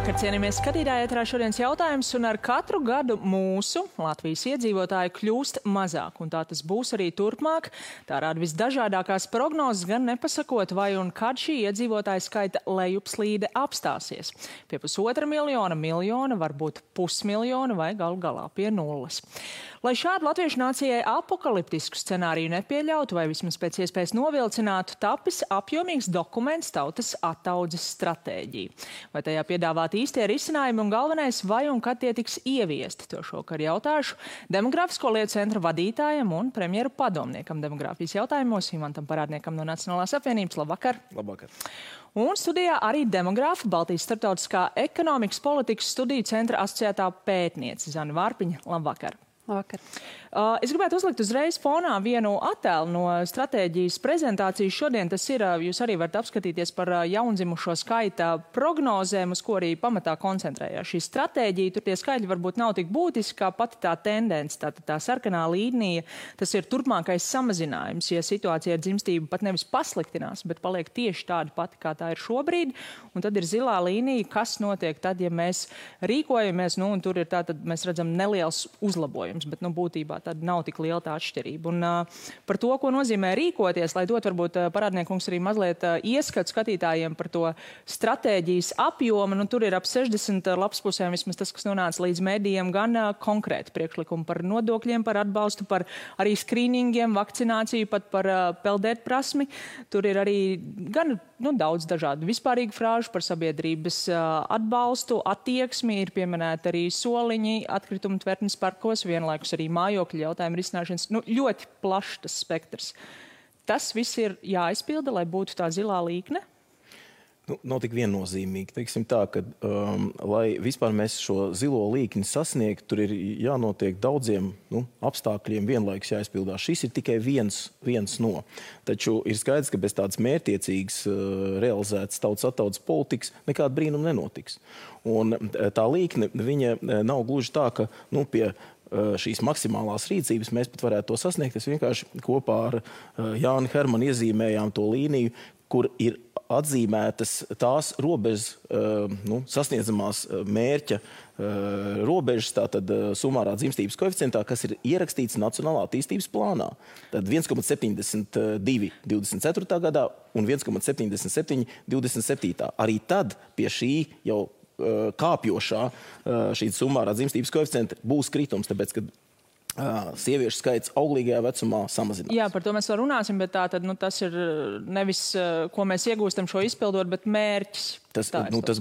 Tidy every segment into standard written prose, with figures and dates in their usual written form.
Labvakar, cienījamies skatītāji, ēterā šodienas jautājums, un ar katru gadu mūsu Latvijas iedzīvotāji kļūst mazāk, un tā tas būs arī turpmāk. Tā rāda visdažādākās prognozes, gan nepasakot, vai un kad šī iedzīvotāja skaita lejupslīde apstāsies. Pie 1,5 miljona, varbūt 500 000 vai galu galā pie nulles. Lai šādu latviešu nācijai apokaliptisku scenāriju nepieļautu vai vismaz pēc iespējas novilcinātu, tapis apjomīgs dokuments Tautas attaudzes stratēģija. Vai tajā piedāvāt īstie risinājumi un galvenais, vai un kad tie tiks ieviesti? To šokar jautāšu Demogrāfisko lietu centra vadītājam un premjeru padomniekam demogrāfijas jautājumos Imantam Parādniekam no Nacionālās apvienības. Labvakar! Labvakar! Un studijā arī demogrāfa, Baltijas starptautiskā ekonomikas politikas studiju centra asociētā pētniece Zana Vārpiņa. Labvakar! Labvakar. Es gribētu uzlikt uzreiz fonā vienu attēlu no stratēģijas prezentācijas. Šodien tas ir, jūs arī varat apskatīties par jaundzimušo skaita prognozēm, uz ko arī pamatā koncentrējās šī stratēģija. Tur tie skaitļi varbūt nav tik būtiski, kā pati tā tendence, tā sarkanā līnija. Tas ir turpmākais samazinājums, ja situācija ar dzimstību pat nevis pasliktinās, bet paliek tieši tāda pati, kā tā ir šobrīd. Un tad ir zilā līnija, kas notiek tad, ja mēs rīkojamies, un tur ir tātad, mēs redzam, neliels uzlabojums, bet, būtībā tad nav tik liela tā atšķirība. Un par to, ko nozīmē rīkoties, lai dot varbūt Parādniekungs arī mazliet ieskatu skatītājiem par to stratēģijas apjomu, tur ir ap 60 lapspusēm vismaz tas, kas nonāca līdz medijiem, gan konkrēti priekšlikumi par nodokļiem, par atbalstu, par arī skrīningiem, vakcināciju, pat par peldēt prasmi. Tur ir arī gan daudz dažādu vispārīgu frāžu par sabiedrības atbalstu, attieksmi, ir pieminēti arī soliņi, atkritumu tvertnes parkos, vienlaikus arī mājokļu jautājumu risināšanas. Ļoti plašs tas spektrs. Tas viss ir jāizpilda, lai būtu tā zilā līkne? Nav tik viennozīmīgi. Teiksim tā, ka, lai vispār mēs šo zilo līkni sasniegtu, tur ir jānotiek daudziem apstākļiem vienlaikus jāizpildās. Šis ir tikai viens no. Taču ir skaidrs, ka bez tādas mērķtiecīgas realizētas tautas attaudzes politikas nekāda brīnuma nenotiks. Un tā līkne, viņa nav gluži tā, ka pie šīs maksimālās rīcības mēs pat varētu to sasniegt. Es vienkārši kopā ar Jāni Hermanu iezīmējām to līniju, kur ir atzīmētas tās robežas, sasniedzamās mērķa robežas, tātad sumārā dzimstības koeficientā, kas ir ierakstīts Nacionālā attīstības plānā. Tad 1,72 24. gadā un 1,77 27. Arī tad pie šī jau kāpjošā šī sumārā dzimstības koeficienta būs kritums, tāpēc, ka sieviešu skaits auglīgajā vecumā samazinās. Jā, par to mēs vēl runāsim, bet tātad, tas ir nevis, ko mēs iegūstam šo izpildot, bet mērķis. Tas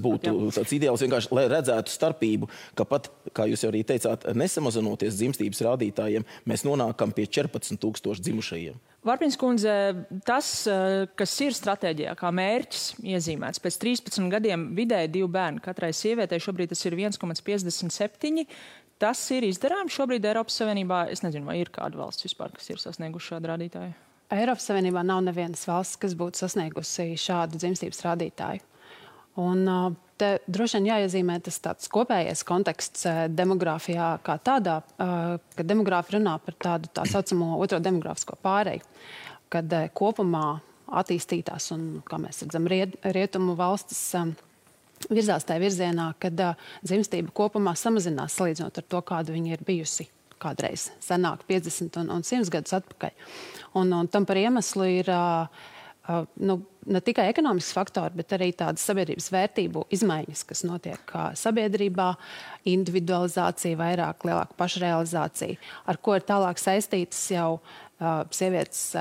būtu tāds ideāls vienkārši, lai redzētu starpību, ka pat, kā jūs jau arī teicāt, nesamazinoties dzimstības rādītājiem, mēs nonākam pie 14 000 dzimušajiem. Vārpiņas kundze, tas, kas ir stratēģijā, kā mērķis iezīmēts, pēc 13 gadiem vidēji 2 bērni katrai sievietei, šobrīd tas ir 1,57. Tas ir izdarāms šobrīd Eiropas Savienībā. Es nezinu, vai ir kāda valsts vispār, kas ir sasnieguši šādu rādītāju. Eiropas Savienībā nav nevienas valsts, kas būtu sasniegusi šādu dzimstības rādītāju. Un te droši vien jāiezīmē tas tāds kopējais konteksts demogrāfijā kā tādā, ka demogrāfi runā par tādu tā saucamo otro demogrāfisko pāreju, kad kopumā attīstītās un, kā mēs redzam, rietumu valstis virzās tajā virzienā, kad dzimstība kopumā samazinās salīdzinot ar to, kāda viņa ir bijusi kādreiz senāk, 50 un 100 gadus atpakaļ. Un tam par iemeslu ir ne tikai ekonomisks faktori, bet arī tādas sabiedrības vērtību izmaiņas, kas notiek sabiedrībā, individualizācija, vairāk, lielāka pašrealizācija, ar ko ir tālāk saistītas jau sievietes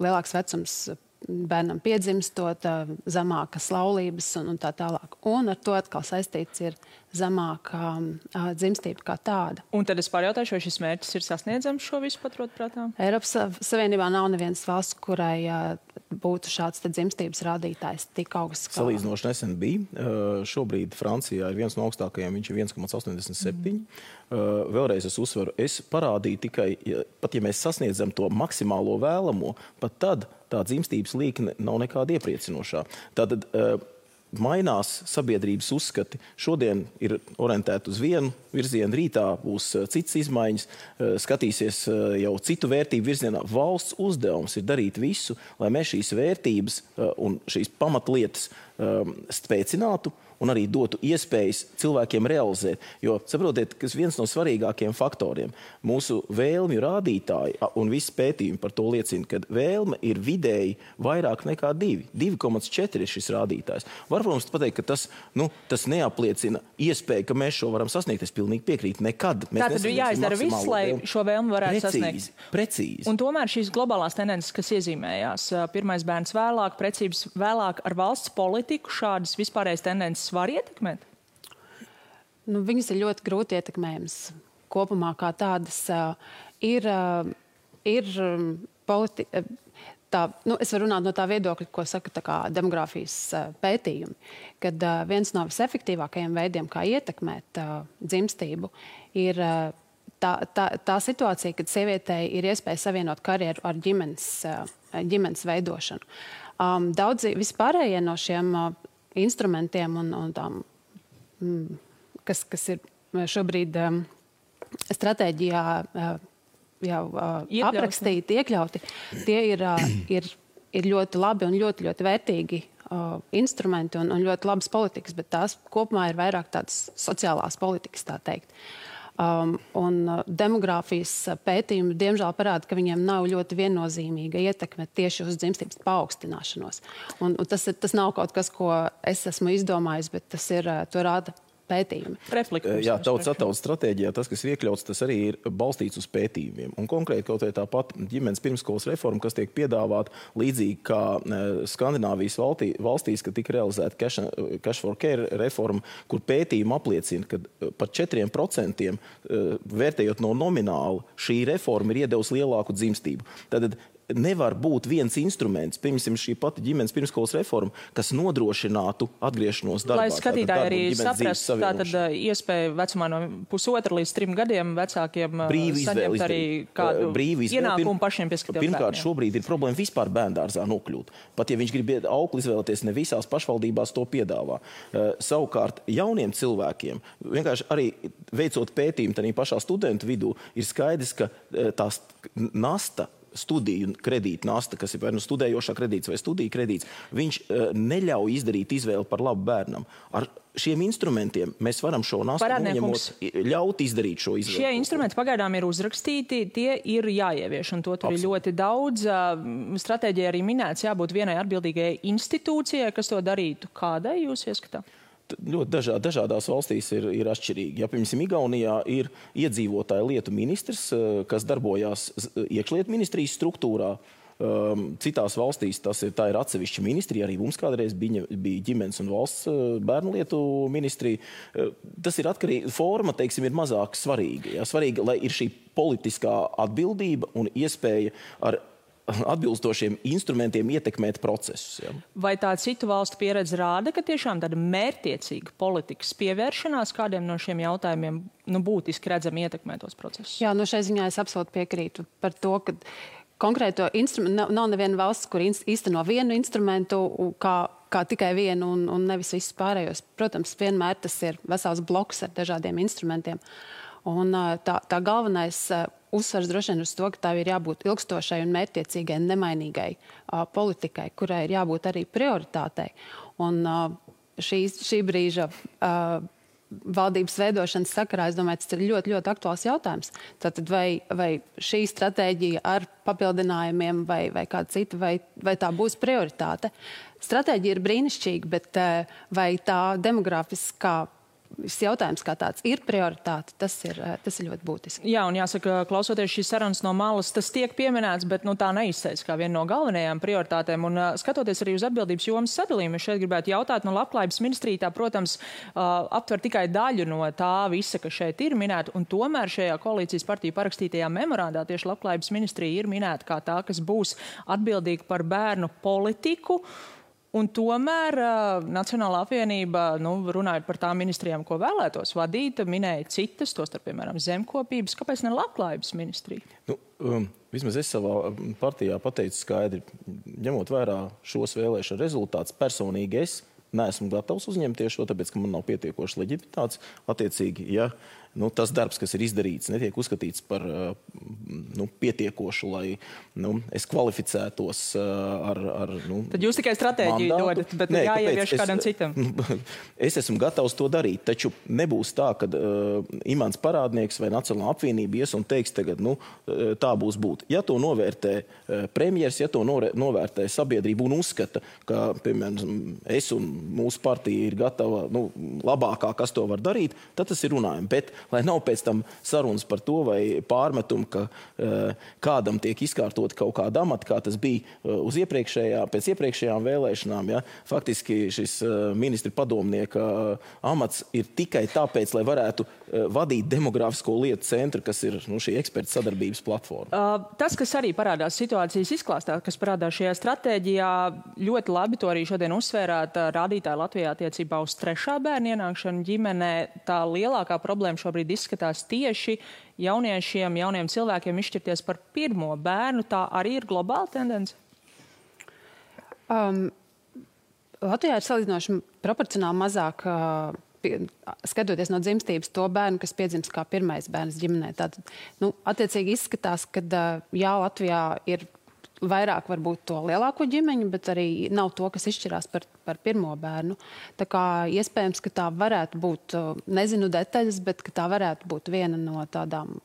lielāks vecums bērnam piedzimstot, zemākas laulības un tā tālāk. Un ar to atkal saistīts ir zemāka dzimstība kā tāda. Un tad es pārjautāšu, vai šis mērķis ir sasniedzams šo visu paturot prātā? Eiropas Savienībā nav nevienas valsts, kurai būtu šāds dzimstības rādītājs tik augsts. Salīdzinoši nesen bija. Šobrīd Francijā ir viens no augstākajiem, viņš ir 1,87. Vēlreiz es uzsveru, es parādīju tikai, pat ja mēs sasniedzam to maksimālo vēlamo, pat tad tā dzimstības līkne nav nekāda iepriecinošā. Tātad mainās sabiedrības uzskati. Šodien ir orientēti uz vienu virzienu, rītā būs citas izmaiņas, skatīsies jau citu vērtību virzienā. Valsts uzdevums ir darīt visu, lai mēs šīs vērtības un šīs pamatlietas spēcinātu un arī dotu iespējas cilvēkiem realizēt. Jo, saprotiet, kas viens no svarīgākiem faktoriem mūsu vēlmju rādītāji un visi pētījumi par to liecina, ka vēlme ir vidēji vairāk nekā 2. 2,4 ir šis rādītājs. Var, protams, pateikt, ka tas neapliecina iespēju, ka mēs šo varam sasniegt. Es pilnīgi piekrītu. Nekad. Tātad jāizdara viss, lai šo vēlmi varētu sasniegt. Precīzi. Un tomēr šīs globālās tendences, kas iezīmējās, pirmais bērns vēlāk, precības vēlāk ar valsts politiku, šādas vispārējas tendences var ietekmēt? Viņas ir ļoti grūti ietekmējams. Kopumā kā tādas ir es varu runāt no tā viedokļa, ko saka demogrāfijas pētījumi, kad viens no visefektīvākajiem veidiem, kā ietekmēt dzimstību, ir tā situācija, kad sievietei ir iespēja savienot karjeru ar ģimenes veidošanu. Daudzi vispārējie no šiem instrumentiem un tām, kas ir šobrīd stratēģijā jau aprakstīti, iekļauti, tie ir ļoti labi un ļoti, ļoti vērtīgi instrumenti un ļoti labas politikas, bet tās kopumā ir vairāk tādas sociālās politikas, tā teikt. Un demogrāfijas pētījumi diemžēl parāda, ka viņiem nav ļoti viennozīmīga ietekme tieši uz dzimstības paaugstināšanos. Un tas nav kaut kas, ko es esmu izdomājis, bet to rāda pētījumi. Jā, tautas attautas stratēģijā tas, kas ir iekļauts, tas arī ir balstīts uz pētījumiem. Un konkrēti kaut vai tāpat ģimenes pirmskolas reforma, kas tiek piedāvāta līdzīgi kā Skandināvijas valstīs, kad tika realizēta Cash for Care reforma, kur pētījumi apliecina, ka par 4% vērtējot no nomināla šī reforma ir iedevusi lielāku dzimstību. Tātad nevar būt viens instruments, piemēram, šī pati ģimenes pirmskolas reforma, kas nodrošinātu atgriešanos darbā. Lai skatītāji arī saprast, tātad iespēja vecumā no 1,5 līdz 3 gadiem vecākiem saņemt arī kādu ienākumu pašiem pieskatīties bērniem. Pirmkārt, šobrīd ir problēma vispār bērndārzā nokļūt. Pat ja viņš grib aukli izvēlēties, ne visās pašvaldībās to piedāvā. Savukārt jauniem cilvēkiem, vienkārši arī veicot pētījumu tādā pašā studentu vidū, ir skaidrs, ka tās nasta, studiju kredīta nasta, kas ir vai studējošā kredīts vai studiju kredīts, viņš neļauj izdarīt izvēli par labu bērnam. Ar šiem instrumentiem mēs varam šo nastu noņemot, ļaut izdarīt šo izvēli. Šie instrumenti pagaidām ir uzrakstīti, tie ir jāievieš, un to tur ir ļoti daudz. Stratēģija arī minēts, jābūt vienai atbildīgajai institūcijai, kas to darītu. Kādai jūs ieskatāt? Ļoti dažādās valstīs ir atšķirīgi. Ja, piemēram, Igaunijā ir iedzīvotāju lietu ministrs, kas darbojās iekšlietu ministrijas struktūrā. Citās valstīs tā ir atsevišķa ministrija, arī mums kādreiz bija ģimenes un valsts bērnu lietu ministrija. Tas ir atkarīgi, forma, teiksim, ir mazāk svarīga. Ja? Svarīgi, lai ir šī politiskā atbildība un iespēja ar atbilstošiem instrumentiem ietekmēt procesus. Ja. Vai tā citu valstu pieredze rāda, ka tiešām tāda mērķiecīga politikas pievēršanās kādiem no šiem jautājumiem būtiski redzami ietekmē tos procesus? Jā, šai ziņā es absolūti piekrītu par to, ka konkrēto instrumentu nav neviena valsts, kur īsteno vienu instrumentu kā tikai vienu un nevis visus pārējos. Protams, vienmēr tas ir vesels bloks ar dažādiem instrumentiem. Un tā galvenais uzsvars droši vien uz to, ka tā ir jābūt ilgstošai un mērķtiecīgai, nemainīgai politikai, kurai ir jābūt arī prioritātei. Un šī brīža valdības veidošanas sakarā, es domāju, tas ir ļoti, ļoti aktuāls jautājums. Tātad vai šī stratēģija ar papildinājumiem vai kāda cita, vai tā būs prioritāte? Stratēģija ir brīnišķīga, bet vai tā demogrāfiskā jautājums kā tāds ir prioritāte, tas ir ļoti būtiski. Jā, un jāsaka, klausoties šīs sarunas no malas, tas tiek pieminēts, bet tā neizsēs kā viena no galvenajām prioritātēm. Un skatoties arī uz atbildības jomas sadalījumu, es šeit gribētu jautāt, labklājības ministrija tā, protams, aptver tikai daļu no tā visa, kas šeit ir minēta, un tomēr šajā koalīcijas partiju parakstītajā memorandā tieši labklājības ministrija ir minēta kā tā, kas būs atbildīga par bērnu politiku. Un tomēr Nacionālā apvienība, runājot par tām ministrijām, ko vēlētos vadīt, minēja citas, tostarp, piemēram, zemkopības. Kāpēc ne labklājības ministrija? Vismaz es savā partijā pateicu skaidri, ņemot vērā šos vēlēšanu rezultātus, personīgi es neesmu gatavs uzņemties šo, tāpēc, ka man nav pietiekoši leģitimitātes. Attiecīgi, ja tas darbs, kas ir izdarīts, netiek uzskatīts par pietiekošu, lai es kvalificētos ar Tad jūs tikai stratēģiju dodat, bet jāievieš kādam citam. Es esmu gatavs to darīt, taču nebūs tā, ka Imants Parādnieks vai Nacionālā apvienība ies un teiks tagad, tā būs būt. Ja to novērtē premjers, ja to novērtē sabiedrība un uzskata, ka, piemēram, es un mūsu partija ir gatava labākā, kas to var darīt, tad tas ir runājumi. Bet, lai nav pēc tam sarunas par to vai pārmetumu, ka kādam tiek izkārtot kaut kāda amata, kā tas bija pēc iepriekšējām vēlēšanām. Ja? Faktiski šis ministra padomnieka amats ir tikai tāpēc, lai varētu vadīt demogrāfisko lietu centru, kas ir šī eksperta sadarbības platforma. Tas, kas arī parādās situācijas izklāstā, kas parādās šajā stratēģijā, ļoti labi to arī šodien uzsvērāt rādītāji Latvijā attiecībā uz 3. bērnu ienākšanu ģimenē. Tā lielākā problēma šobrīd izskatās tieši jauniem cilvēkiem izšķirties par 1. bērnu. Tā arī ir globāla tendence? Latvijā ir salīdzinoši proporcionāli mazāk, skatoties no dzimstības, to bērnu, kas piedzimst kā 1. bērns ģimenē. Tātad, attiecīgi izskatās, ka Latvijā ir vairāk varbūt to lielāko ģimeņu, bet arī nav to, kas izšķirās par 1. bērnu. Tā kā iespējams, ka tā varētu būt, nezinu detaļas, bet ka tā varētu būt viena no tādām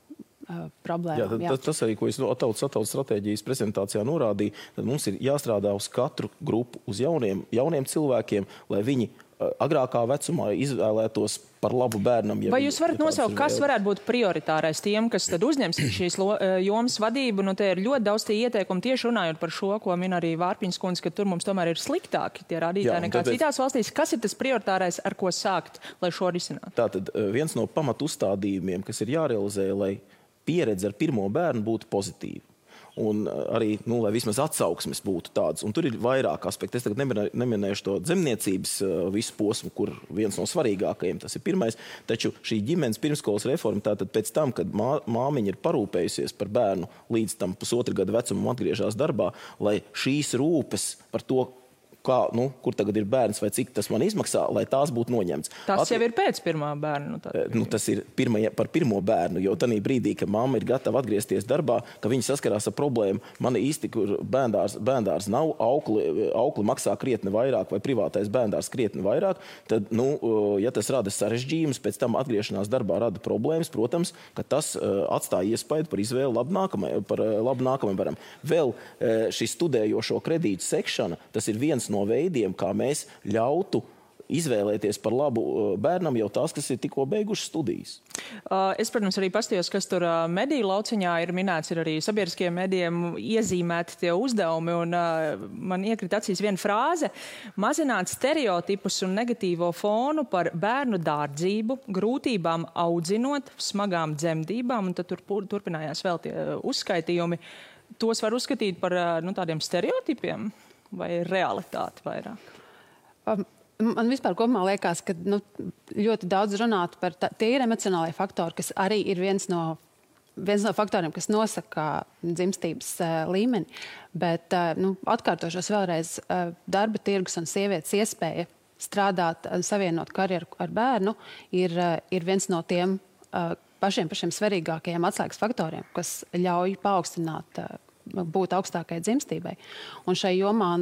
problēmām. Tas arī, ko es Atautas stratēģijas prezentācijā norādīju, tad mums ir jāstrādā uz katru grupu, uz jauniem cilvēkiem, lai viņi agrākā vecumā izvēlētos par labu bērnam. Vai jūs varat nosaukt, kas varētu būt prioritārais tiem, kas tad uzņems šīs jomas vadību? Te ir ļoti daudz tie ieteikumi tieši runājot par šo, ko min arī Vārpiņas kundze, ka tur mums tomēr ir sliktāki tie rādītāji nekā citās valstīs. Kas ir tas prioritārais, ar ko sākt, lai šo risinātu? Tātad viens no pamatu uzstādījumiem, kas ir jārealizē, lai pieredze ar 1. bērnu būtu pozitīva. Un arī, lai vismaz atsauksmes būtu tādas. Un tur ir vairāk aspekti. Es tagad neminēšu to dzemniecības visu posmu, kur viens no svarīgākajiem tas ir 1. Taču šī ģimenes pirmskolas reforma, tātad pēc tam, kad māmiņa ir parūpējusies par bērnu līdz tam 1,5 gada vecumam atgriežās darbā, lai šīs rūpes par to, kur tagad ir bērns vai cik tas man izmaksā, lai tās būtu noņemts. Tas jau ir pēc 1. bērnu. Tas ir par 1. bērnu, jo tanī brīdī, ka mamma ir gatava atgriezties darbā, ka viņi saskarās ar problēmu, man īsti, kur bērndārs nav, aukli maksā krietni vairāk vai privātais bērndārs krietni vairāk, tad, ja tas rada sarežģījumus, pēc tam atgriešanās darbā rada problēmas, protams, ka tas atstāja iespaidu par izvēli labu nākamajam bērnam. Vēl šis studējošo kredītu sekšana, tas ir viens no veidiem, kā mēs ļautu izvēlēties par labu bērnam jau tās, kas ir tikko beiguši studijas. Es, protams, arī pastījos, kas tur mediju lauciņā ir minēts, ir arī sabiedriskiem medijiem iezīmēti tie uzdevumi, un man iekrita acīs viena frāze – mazināt stereotipus un negatīvo fonu par bērnu dārdzību, grūtībām audzinot, smagām dzemdībām, un tad tur turpinājās vēl tie uzskaitījumi. Tos var uzskatīt par tādiem stereotipiem vai realitāti vairāk? Man vispār kopumā liekas, ka ļoti daudz runāt par tie ir emocionālie faktori, kas arī ir viens no faktoriem, kas nosaka dzimstības līmeni. Bet atkārtošos vēlreiz, darba tirgus un sievietes iespēja strādāt, savienot karjeru ar bērnu ir viens no tiem pašiem svarīgākajiem atslēgas faktoriem, kas ļauj paaugstināt būt augstākai dzimstībai. Un šai jomā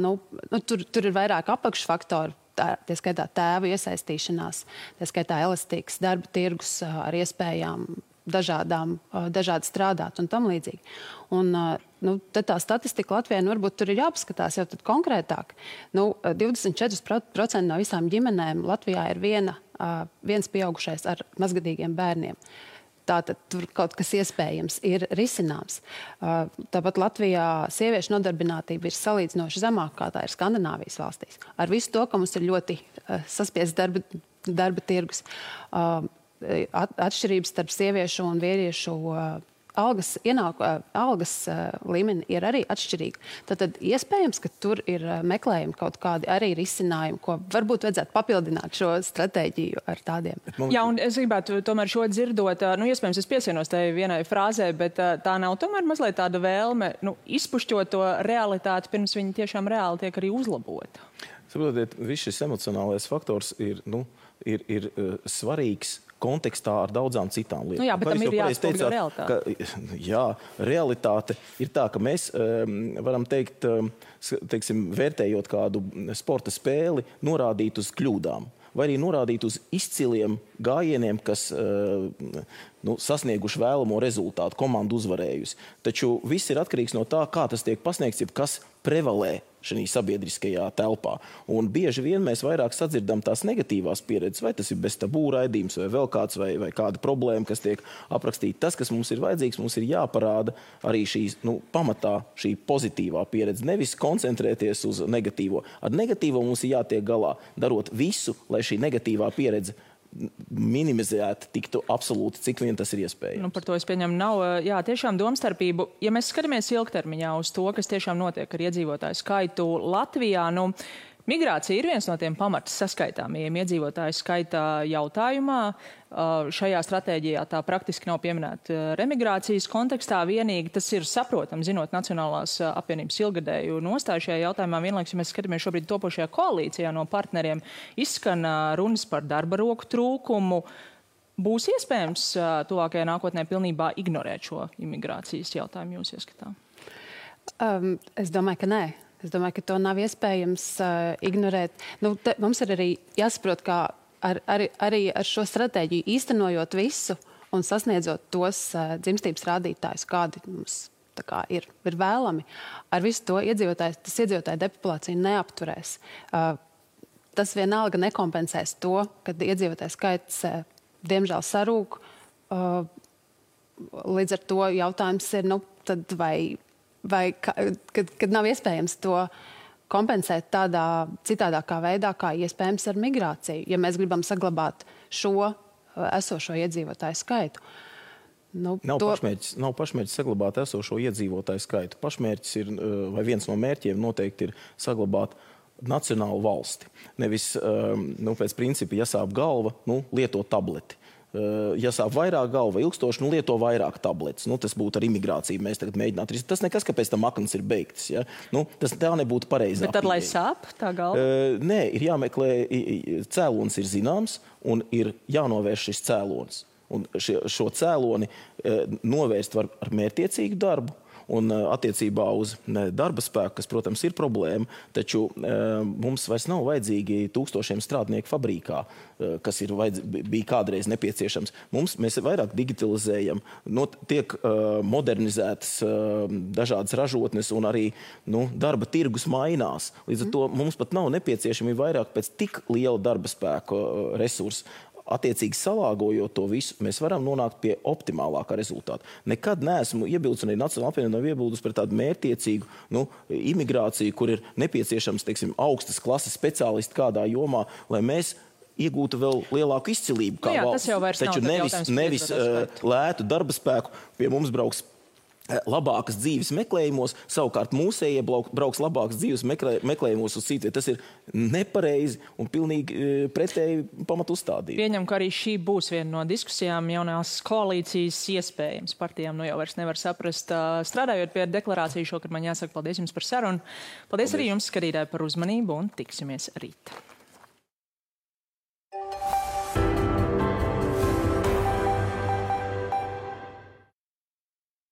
tur ir vairāk apakšfaktori, tie skaitā tēvu iesaistīšanās, tie skaitā elastīgs darba tirgus ar iespējām dažādi strādāt un tam līdzīgi. Un tad tā statistika Latvijā varbūt tur ir jāpaskatās jau tad konkrētāk. 24% no visām ģimenēm Latvijā ir viens pieaugušais ar mazgadīgiem bērniem. Tātad tur kaut kas iespējams ir risināms. Tāpat Latvijā sieviešu nodarbinātība ir salīdzinoši zemāka, kā tā ir Skandināvijas valstīs. Ar visu to, ka mums ir ļoti saspiests darba tirgus, atšķirības starp sieviešu un vīriešu algas līmeni ir arī atšķirīga. Tad iespējams, ka tur ir meklējumi kaut kādi arī risinājumi, ko varbūt vajadzētu papildināt šo stratēģiju ar tādiem. Jā, un es gribētu tomēr šo dzirdot, iespējams, es piesienos tai vienai frāzē, bet tā nav tomēr mazliet tāda vēlme, izpušķot to realitāti, pirms viņi tiešām reāli tiek arī uzlabota. Saprotiet, viss šis emocionālais faktors ir svarīgs kontekstā ar daudzām citām lietām. Nu jā, bet tam ir jāatspogļo realitāte. Jā, realitāte ir tā, ka mēs varam teikt, teiksim, vērtējot kādu sporta spēli, norādīt uz kļūdām. Vai arī norādīt uz izciliem gājieniem, kas sasnieguši vēlamo rezultātu, komandu uzvarējusi. Taču viss ir atkarīgs no tā, kā tas tiek pasniegts, jeb kas prevalē šajā sabiedriskajā telpā. Un bieži vien mēs vairāk sadzirdam tās negatīvās pieredzes, vai tas ir bez tabū raidījums, vai vēl kāds, vai kāda problēma, kas tiek aprakstīta. Tas, kas mums ir vajadzīgs, mums ir jāparāda arī šīs, pamatā šī pozitīvā pieredze, nevis koncentrēties uz negatīvo. Ar negatīvo mums ir jātiek galā, darot visu, lai šī negatīvā pieredze minimizēt tiktu absolūti, cik vien tas ir iespējams. Par to es pieņemu nav, tiešām domstarpību. Ja mēs skatāmies ilgtermiņā uz to, kas tiešām notiek ar iedzīvotāju skaitu Latvijā, migrācija ir viens no tiem pamatas saskaitāmajiem iedzīvotāju skaita jautājumā. Šajā stratēģijā tā praktiski nav pieminēta remigrācijas kontekstā vienīgi. Tas ir saprotami, zinot Nacionālās apvienības ilgadēju nostāju šajā jautājumā. Vienlaikus, ja mēs skatāmies šobrīd topošajā koalīcijā no partneriem, izskan runas par darba roku trūkumu. Būs iespējams tuvākajā nākotnē pilnībā ignorēt šo imigrācijas jautājumu jūs ieskatā? Es domāju, ka nē. Es domāju, ka to nav iespējams ignorēt. Mums ir arī jāsaprot, ka arī ar šo stratēģiju īstenojot visu un sasniedzot tos dzimstības rādītājus, kādi mums ir vēlami, ar visu to iedzīvotāju depopulāciju neapturēs. Tas vienalga nekompensēs to, kad iedzīvotāju skaits diemžēl sarūk. Līdz ar to jautājums ir, tad kad nav iespējams to kompensēt tādā citādākā veidā, kā iespējams ar migrāciju, ja mēs gribam saglabāt šo esošo iedzīvotāju skaitu. Nav pašmērķis saglabāt esošo iedzīvotāju skaitu. Pašmērķis ir, vai viens no mērķiem noteikti ir saglabāt nacionālu valsti. Nevis, pēc principa, ja sāp galva, lieto tableti. Ja sāp vairāk galva ilgstoši, lieto vairāk tabletes. Tas būtu ar imigrāciju. Mēs tagad mēģinātu risināt. Tas nekas, kāpēc tam aknas ir beigtas. Ja? Tā nebūtu pareizā. Bet tad, lai sāp tā galva? Nē, ir jāmeklē, cēlonis ir zināms un ir jānovērš šis cēlonis. Un šo cēloni novērst var ar mērķtiecīgu darbu. Un attiecībā uz darba spēku, kas, protams, ir problēma, taču mums vairs nav vajadzīgi tūkstošiem strādnieku fabrikā, kas bija kādreiz nepieciešams. Mēs vairāk digitalizējam, tiek modernizētas dažādas ražotnes un arī darba tirgus mainās. Līdz ar to mums pat nav nepieciešami vairāk pēc tik liela darba spēku resursu. Attiecīgi salāgojot to visu, mēs varam nonākt pie optimālākā rezultāta. Nekad neesmu iebildusi, un arī Nacionālā apvienība nav iebildusi par tādu mērķtiecīgu imigrāciju, kur ir nepieciešams, augstas klases speciālisti kādā jomā, lai mēs iegūtu vēl lielāku izcilību kā valsts. Taču nevis lētu darba spēku pie mums brauks labākas dzīves meklējumos, savukārt mūsējie brauks labākas dzīves meklējumos uz citu. Tas ir nepareizi un pilnīgi pretēji pamatu uzstādību. Pieņem, ka arī šī būs viena no diskusijām jaunās koalīcijas iespējams. Partijām jau vairs nevar saprast. Strādājot pie deklarāciju šokar, man jāsaka paldies jums par sarunu. Paldies arī jums, skatītāji, par uzmanību un tiksimies rīt.